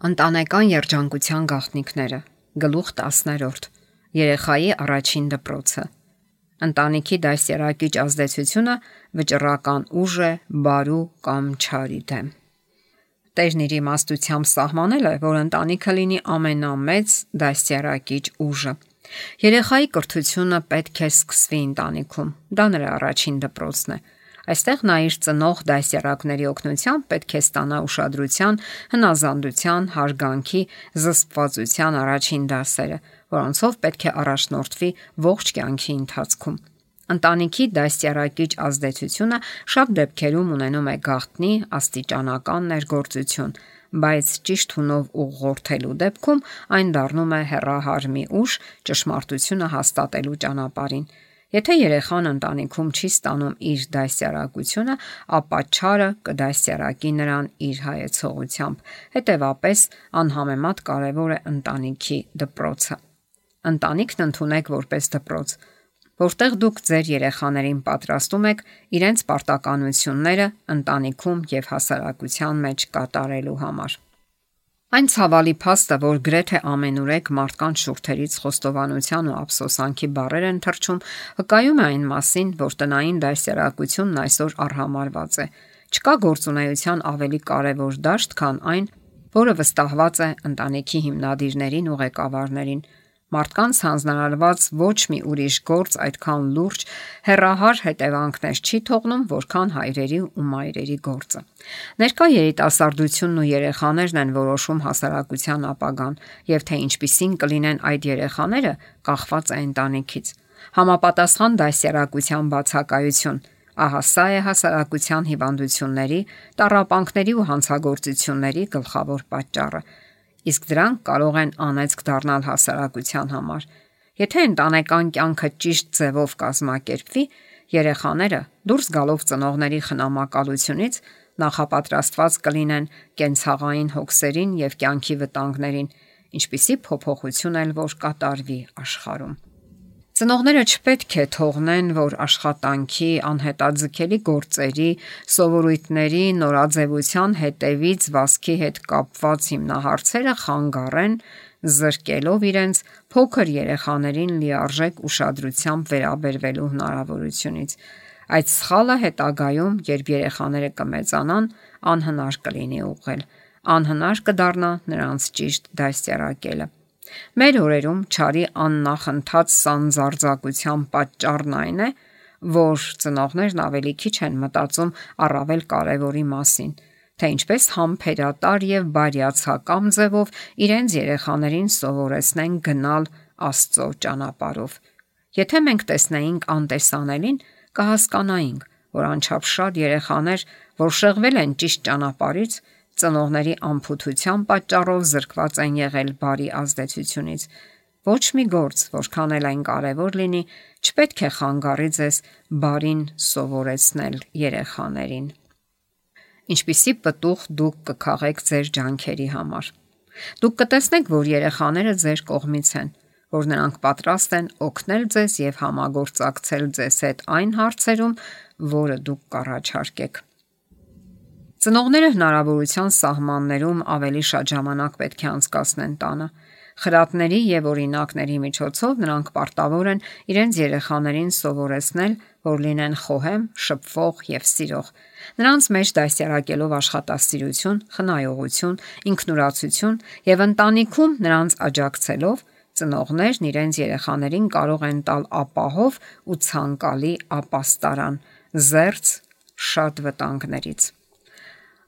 Ընտանեկան երջանկության գաղտնիքները։ Գլուխ 10. Երեխայի առաջին դպրոցը։ Ընտանիքի դաստիարակիչ ազդեցությունը վճռական ուժ է բարու կամ չարի դեմ։ Տերն իր իմաստությամբ սահմանել է, որ ընտանիքը լինի ամենամեծ դաստիարակիչ ուժը։ Երեխայի կրթությունը պետք է սկսվի ընտանիքում։ Դա նրա առաջին դպրոցն է։ Այստեղ նա իր ծնող դաստիարակների օգնությամբ պետք է ստանա ուշադրության, հնազանդության, հարգանքի, զսպվածության առաջին դասերը, որոնցով պետք է առաջնորդվի ողջ կյանքի ընթացքում։ Ընտանիքի դաստիարակիչ ազդեցությունը շատ դեպքերում ունենում է գաղտնի աստիճանական ներգործություն, բայց ճիշտ հունով ուղղորդելու դեպքում այն դառնում է հեռահար մի ուժ ճշմարտությունը հաստատելու ճանապարհին։ Եթե երեխան ընտանիքում չի ստանում իր դաստիարակությունը, ապա չարը կդաստիարակի նրան իր հայեցողությամբ։ Հետևաբար, անհամեմատ կարևոր է ընտանիքի դպրոցը։ Ընտանիքն ընդունեք որպես դպրոց, որտեղ դուք ձեր երեխաներին պատրաստում եք իրենց պարտականությունները ընտանիքում եւ հասարակության մեջ կատարելու համար։ Այն ցավալի փաստը, որ գրեթե ամենուրեք մարդկանց շուրթերից խոստովանության ու ափսոսանքի բառեր են թռչում, վկայում է այն մասին, որ տնային դաստիարակությունն այսօր արհամարհված է։ Չկա գործունեության ավելի կարևոր դաշտ, քան այն, որը վստահված է ընտանիքի հիմնադիրներին ու ղեկավարներին։ Մարդկանց հանձնարարված ոչ մի ուրիշ գործ այդքան լուրջ, հեռահար հետևանքներ չի թողնում, որքան հայրերի ու մայրերի գործը։ Ներկա երիտասարդությունն ու երեխաներն են որոշում հասարակության ապագան, եւ թե ինչպիսին կլինեն այդ երեխաները, կախված է ընտանիքից։ Համապատասխան դաստիարակության բացակայություն, ահա սա է հասարակության հիվանդությունների, տառապանքների ու հանցագործությունների գլխավոր պատճառը։ Իսկ դրանք կարող են անեծք դառնալ հասարակության համար։ Եթե ընտանեկան կյանքը ճիշտ ձևով կազմակերպվի, երեխաները դուրս գալով ծնողների խնամակալությունից նախապատրաստված կլինեն կենցաղային հոգսերին եւ կյանքի վտանգներին, ինչպիսի փոփոխություն էլ որ կատարվի աշխարհում։ Ծնողները չպետք է թողնեն, որ աշխատանքի, անհետաձգելի գործերի, սովորույթների, նորաձևության հետևից վազքի հետ կապված հիմնահարցերը խանգարեն, զրկելով իրենց փոքր երեխաներին լիարժեք ուշադրությամբ վերաբերվելու հնարավորությունից։ Այդ սխալը հետագայում, երբ երեխաները կմեծանան, անհնար կլինի ուղղել, անհնար կդառնա նրանց ճիշտ դաստիարակելը։ Մեր օրերում չարի աննախընթաց սանձարձակության պատճառն այն է, որ ծնողներն ավելի քիչ են մտածում առավել կարևորի մասին, թե ինչպես համբերատար եւ բարյացակամ ձևով իրենց երեխաներին սովորեցնեն գնալ Աստծո ճանապարհով։ Եթե մենք տեսնեինք անտեսանելին, կհասկանայինք, որ անչափ շատ երեխաներ, որ շեղվել են ճիշտ ճանապարհից, ծնողների անփութության պատճառով զրկված են եղել բարի ազդեցությունից։ Ոչ մի գործ, որքան էլ այն կարևոր լինի, չպետք է խանգարի ձեզ բարին սովորեցնել երեխաներին։ Ինչպիսի պտուղ դուք կքաղեք ձեր ջանքերի համար։ Դուք կտեսնեք, որ երեխաները ձեր կողմից են, որ նրանք պատրաստ են օգնել ձեզ եւ համագործակցել ձեզ հետ այն հարցերում, որը դուք կառաջարկեք։ Ծնողները հնարավորության սահմաններում ավելի շատ ժամանակ պետք է անցկացնեն տանը։ Խրատների եւ օրինակների միջոցով նրանք պարտավոր են իրենց երեխաներին սովորեցնել, որ լինեն խոհեմ, շփվող եւ սիրող։ Նրանց մեջ դաստիարակելով աշխատասիրություն, խնայողություն, ինքնուրացություն եւ ընտանիքում նրանց աջակցելով, ծնողներն իրենց երեխաներին կարող են տալ ապահով ու ցանկալի ապաստարան, զերծ շատ վտանգներից։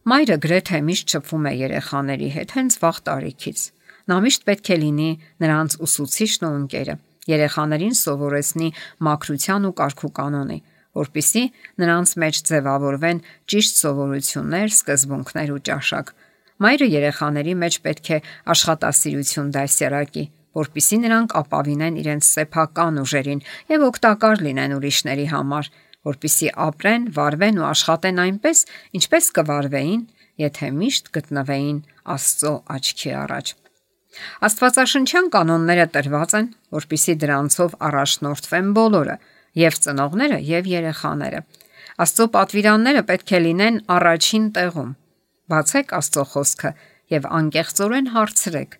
Մայրը գրեթե միշտ շփվում է երեխաների հետ հենց վաղ տարիքից։ Նա միշտ պետք է լինի նրանց ուսուցիչն ու ընկերը, երեխաներին սովորեցնի մաքրության ու կարգուկանոնի, որպեսզի նրանց մեջ ձևավորվեն ճիշտ սովորություններ, սկզբունքներ ու ճաշակ։ Մայրը երեխաների մեջ պետք է աշխատասիրություն դաստիարակի, որպեսզի նրանք ապավինեն իրենց սեփական ուժերին եւ օգտակար լինեն ուրիշների համար, որպեսզի ապրեն, վարվեն ու աշխատեն այնպես, ինչպես կվարվեին, եթե միշտ գտնվեին Աստծո աչքի առաջ։ Աստվածաշնչյան կանոնները տրված են, որպեսզի դրանցով առաջնորդվեն բոլորը, եւ ծնողները, եւ երեխաները։ Աստծո պատվիրանները պետք է լինեն առաջին տեղում։ Բացեք Աստծո խոսքը եւ անկեղծորեն հարցրեք.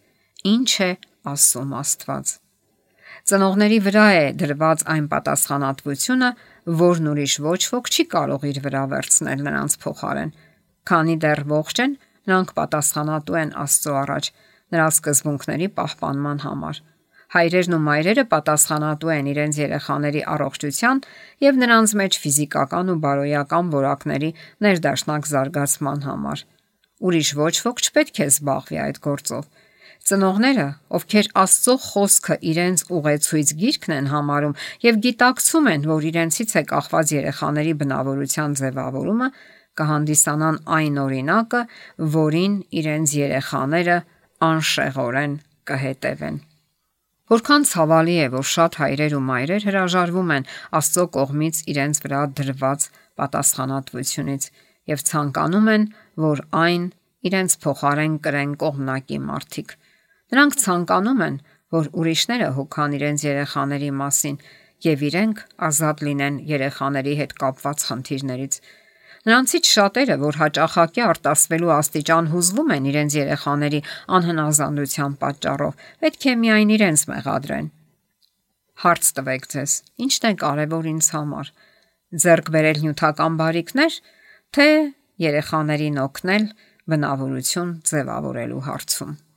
ինչ է ասում Աստված։ Ծնողների վրա է դրված այն պատասխանատվությունը, որն ուրիշ ոչ ոք չի կարող իր վրա վերցնել նրանց փոխարեն։ Քանի դեռ ողջ են, նրանք պատասխանատու են Աստծո առաջ նրա սկզբունքների պահպանման համար։ Հայրերն ու մայրերը պատասխանատու են իրենց երեխաների առողջության եւ նրանց մեջ ֆիզիկական ու բարոյական որակների ներդաշնակ զարգացման համար։ Ուրիշ ոչ ոք չպետք է զբաղվի այդ գործով։ Ծնողները, ովքեր Աստծո խոսքը իրենց ուղեցույց գիրքն են համարում եւ գիտակցում են, որ իրենցից է կախված երեխաների բնավորության ձևավորումը, կհանդիսանան այն օրինակը, որին իրենց երեխաները անշեղորեն կհետևեն։ Որքան ցավալի է, որ շատ հայրեր ու մայրեր հրաժարվում են Աստծո կողմից իրենց վրա դրված պատասխանատվությունից եւ ցանկանում են, որ այն իրենց փոխարեն կրեն կողմնակի մարդիկ։ Նրանք ցանկանում են, որ ուրիշները հոգան իրենց երեխաների մասին եւ իրենք ազատ լինեն երեխաների հետ կապված խնդիրներից։ Նրանցից շատերը, որ հաճախակի արտասվելու աստիճան հուզվում են իրենց երեխաների անհնազանդության պատճառով, պետք է միայն իրենց մեղադրեն։ Հարց տվեք ձեզ. ի՞նչն է կարևոր ինձ համար՝ ձեռք բերել նյութական բարիքներ, թե երեխաներին օգնել բնավորություն ձևավորելու հարցում։